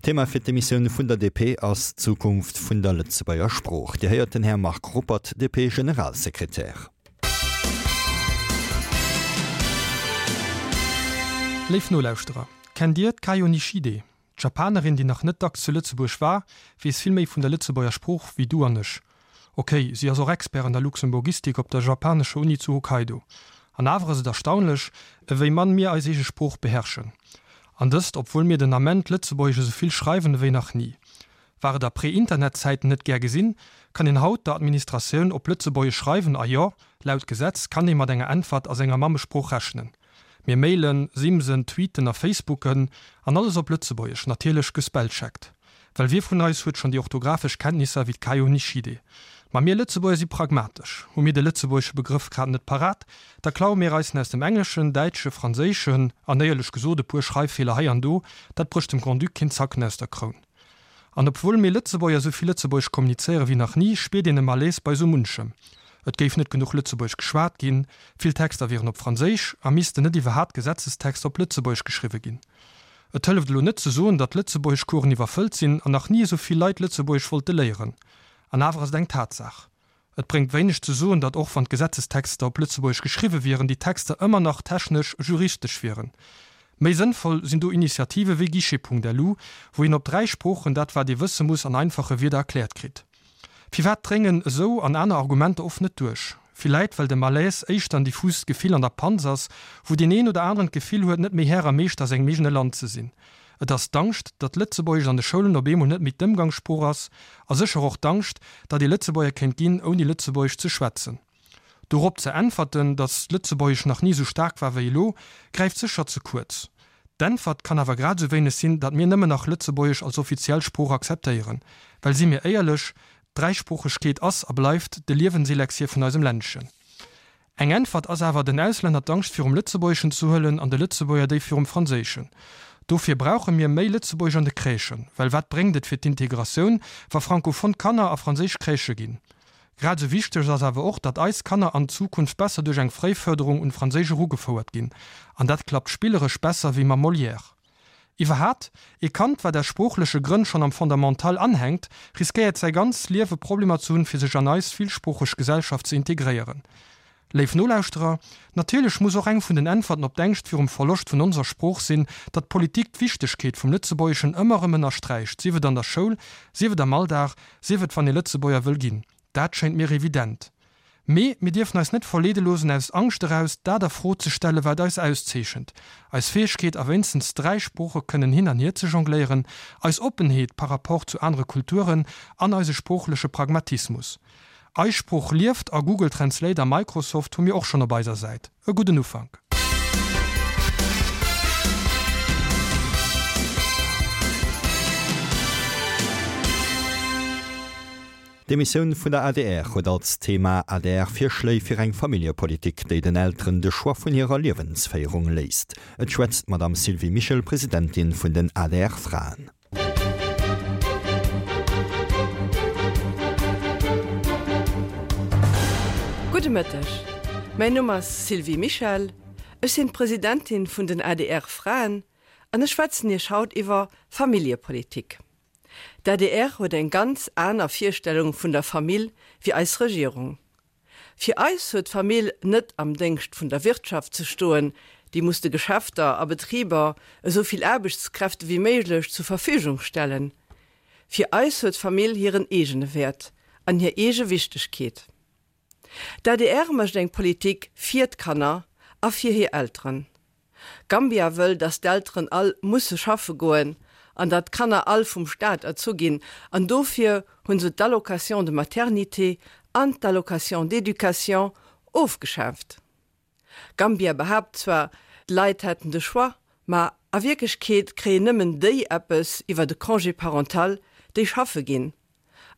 D'Thema fir d'Emissioun vun der DP ass d'Zukunft vun der Lëtzebuerger Sprooch. Dir héiert den Här Marc Ruppert, DP-Generalsekretär. Léif Nolauschterer, kennt Dir d'Kayo Nishide? D'Japanerin, déi nach net dacks zu Lëtzebuerg war, weess vill méi vun der Lëtzebuerger Sprooch wéi du an ech. Ok, si ass och Expert an der Luxemburgistik op der japanescher Uni zu Hokkaido. An awer ass et erstaunlech, ewéi mann mir eis eege Sprooch beherrschen. An dëst, obwuel mir den Ament Lëtzebuergesch esou vill schreiwen ewéi nach ni. War et a Pré-Internet-Zäiten net gär gesinn, kann een haut der Administratioun op Lëtzebuergesch schreiwen a jo, laut Gesetz kann ee mat enger Äntwert a senger Mammesprooch rechnen. Mir mailen, simsen, tweeten a facebooken, an alles op Lëtzebuergesch, natierlech gespellcheckt. Well wie vun eis huet schonn déi orthographesch Kenntnisser wéi d'Kayo Nishide? Ma mir Lëtzebuerger si pragmatesch. Hu mir de lëtzebuergesche Begrëff grad net parat, da klaue mir eis en aus dem Engleschen, Däitsche, Franséischen, an éierlech gesot, e puer Schreiffeeler hei an do, dat brécht dem Grand-Duc keen Zacken aus der Kroun. An obwuel mir Lëtzebuerger esou vill Lëtzebuergesch kommunizéiere wéi nach ni, spiert een e Malaise bei esou munchem. Et géif net genuch Lëtzebuergesch geschwat ginn, vill Texter wieren op Franséisch a missten net iwwerhaapt Gesetzestexter op Lëtzebuergesch geschriwwe ginn. Et hëlleft elo net ze soen, datt d'Lëtzebuergeschcoursen iwwerfëllt sinn an nach ni esou vill Leit Lëtzebuergesch wollte léieren. An awer ass et eng Tatsaach. Et bréngt wéineg ze soen, datt och wann d'Gesetzestexter op Lëtzebuergesch geschriwwe wieren, déi Texter ëmmer nach technesch juristesch wieren. Méi sënnvoll sinn do Initiative wéi Guichet.lu, wou een op 3 Sproochen dat wat ee wësse muss an einfache Wierder erkläert kritt. Firwat dréngen esou an aner Argumenter oft net duerch? Villäit well de Malaise éischter en diffust Gefill an der Panz ass, wou deen een oder aneren d'Gefill huet, net méi Här a Meeschter a sengem eegene Land ze sinn. Et ass d'Angscht, datt Lëtzebuergesch an de Schoulen op eemol net méi d'Ëmgangssprooch ass, a sécher och d'Angscht, datt ee Lëtzebuerger kéint ginn, ouni Lëtzebuergesch ze schwätzen. Dorop ze äntwerten, datt Lëtzebuergesch nach ni esou staark war wéi elo, gräift sécher ze kuerz. D'Äntwert kann awer grad esou wéineg sinn, datt mir nëmmen nach Lëtzebuergesch als offiziell Sprooch akzeptéieren. Well si mir éierlech, d'Dräisproochegkeet ass a bleift de Liewenselexir vun eisem Ländchen. Eng Äntwert ass awer, den Auslänner d'Angscht virum Lëtzebuergeschen ze huelen an de Lëtzebuerger déi virum Franséischen. Dofir brauche mir méi Lëtzebuergesch an de Crèchen. Well wat bréngt et fir d'Integratioun, wa frankophon Kanner a franséisch Crèchë ginn? Grad esou wichteg ass awer och, datt eis Kanner an Zukunft besser duerch eng Fréiförderung un Franséisch erugefouert ginn. An dat klappt spilleresch besser wéi mam Molière. Iwwerhat, ee Kand, wat aus sproochleche Grënn schonn am Fondamental anhänkt, riskéiert säi ganz Liewe Problemer ze hunn, fir sech an eis villsproocheg Gesellschaft ze integréieren. Léif Nolauschterer, natierlech muss och eng vun den Äntwerten op d'Ängscht virum Verloscht vun onser Sprooch sinn, datt d'Politik d'Wichtegkeet vum Lëtzebuergeschen ëmmer erëm ënnersträicht, sief et an der Schoul, sief et am Alldag, sief et wann ee Lëtzebuerger wëll ginn. Dat schéint mir evident. Mee mir dierfen eis net verleede loosen, aus Angscht eraus dat a Fro ze stellen, wat eis auszeechent, eis Fäegkeet a wéinstens 3 Sprooche kënnen hin an hier ze jongléieren, eis Oppenheet par rapport zu anere Kulturen an eise sproochleche Pragmatismus. Eis Sprooch lieft a Google Translate a Microsoft hu mir och schonn op eiser Säit. E gudden Ufank. D'Emissioun vun der adr huet als Thema ADR-Virschléi fir eng Familljepolitik, déi den Elteren de Choix vun hirer Liewensféierung léisst. Et schwätzt d'Madame Sylvie Mischel, Presidentin vun den ADR-Fraen. Gudde Mëtteg, mäin Numm ass Sylvie Mischel, ech sinn d'Presidentin vun den adr Fraen an ech schwätzen Iech haut iwwer Familljepolitik. D'adr huet eng ganz aner Virstellung vun der Famill wéi eis Regierung. Fir eis huet d'Famill net am Déngscht vun der Wirtschaft ze stoen, déi muss de Geschäfter a Betriber esou vill Aarbechtskräfte wéi méiglech zur Verfügung stellen. Fir eis huet d'Famill hiren eegene Wäert an hir eege Wichtegkeet. D'adr mécht eng Politik fir d'Kanner a fir hir Elteren. Gambia wëll, datt d'Elteren all musse schaffe goen an datt d'Kanner all vum Staat erzu ginn an dofir hunn se d'Allocation de maternité an d'Allocation d'éducation ofgeschaaft. Gambia behaapt zwar, d'Leit hätten de Choix, ma a Wierklechkeet kréien nëmmen déi eppes iwwer de Congé parental, déi schaffe ginn.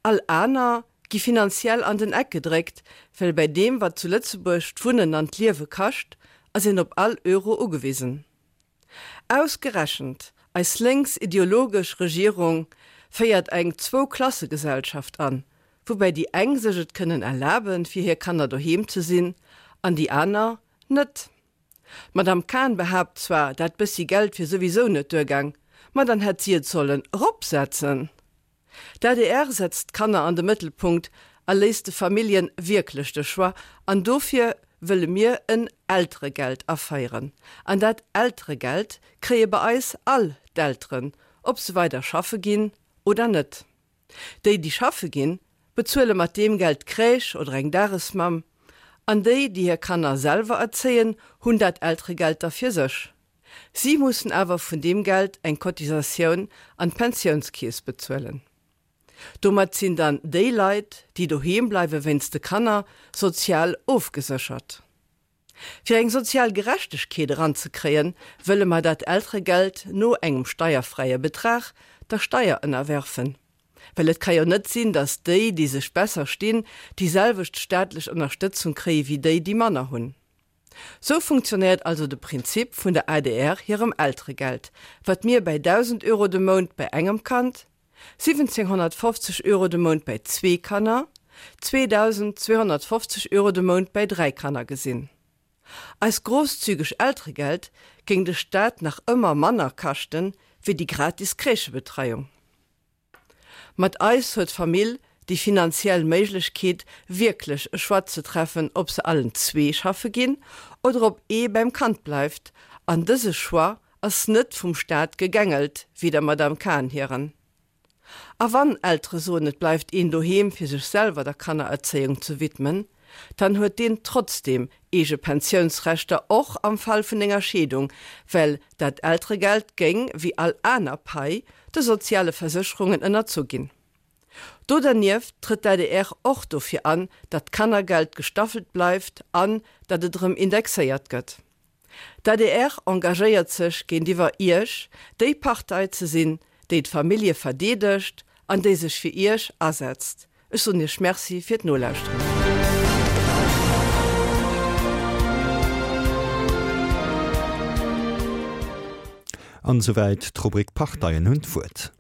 All aner gi finanziell an den Eck gedréckt, well bäi deem wat zu Lëtzebuerg d'Wunnen an d'Liewe kascht, ass een op all Euro ugewisen. Ausgerechent eis lénks ideologesch Regierung féiert eng Zwou-Klasse-Gesellschaft an, woubäi déi eng sech et kënnen erlaben, fir hir Kanner doheem ze sinn, an déi aner net. D'Madame Cahen behaapt zwar, dat bëssi Geld wier souwisou net duergaang. Ma dann hätt si et sollen eropsetzen. D'adr setzt d'Kanner an de Mëttelpunkt a léisst de Familljen wierklech de Choix an dofir wëlle mir en Elteregeld aféieren. An dat Elteregeld kréie bei eis all d'Elteren, ob se weider schaffe ginn oder net. Déi, déi schaffe ginn, bezuele mat deem Geld d'Crèche oder eng Dagesmamm an déi, déi hir Kanner selwer erzéien, hunn dat Elteregeld da fir sech. Si mussen awer vun deem Geld eng Cotisatioun an d'Pensiounskeess bezuelen. Domat sinn dann déi Leit, déi doheem bleiwe wéinst de Kanner, sozial ofgeséchert. Fir eng sozial Gerechtegkeet eranzekréien, wëlle mer dat Elteregeld no engem steierfräie Betrag der Steier ënnerwerfen. Well et ka jo net sinn, datt déi, déi sech besser stinn, déi selwecht staatlech Ënnerstëtzung kréie wéi déi, déi manner hunn. Sou funktionéiert also de Prinzip vun der adr hirem Elteregeld, wat mir bäi 1.000 Euro de Mount bäi engem Kand, 1.750 Euro de Mount bäi zwee Kanner, 2.250 Euro de Mount bäi dräi Kanner gesinn. Eist grosszügeg Elteregeld géing de Staat nach ëmmer manner kaschten, wéi déi gratis Crèchebetreiung. Mat eis huet d'Famill déi finanziell Méiglechkeet, wierklech e Choix ze treffen, ob se allen zwee schaffe ginn oder ob ee beim Kand bleift. An dëse Choix ass net vum Staat gegängelt, wéi der Madame Cahen hiren. A wann Eltere soen, et bleift een doheem fir sech selwer der Kannererzéiung ze widmen, dann huet deen trotzdem eege Pensiounsrechter, och am Fall vun enger Scheedung, well dat Elteregeld géing, wéi all aner Pai, de soziale Versécherungen ënnerzu ginn. Do dernieft trëtt d'ADR och dofir an, datt d'Kannergeld gestaffelt bleift an datt et erëm indexéiert gëtt. D'adr engagéiert sech géintiwwer Iech, déi Partei ze sinn, déi d'Famillje verdeedegt an déi sech fir Iech asetzt. Ech soen Iech Merci fir d'Nolauschteren. An esouwäit d'Rubrik Parteien hunn d'Wuert.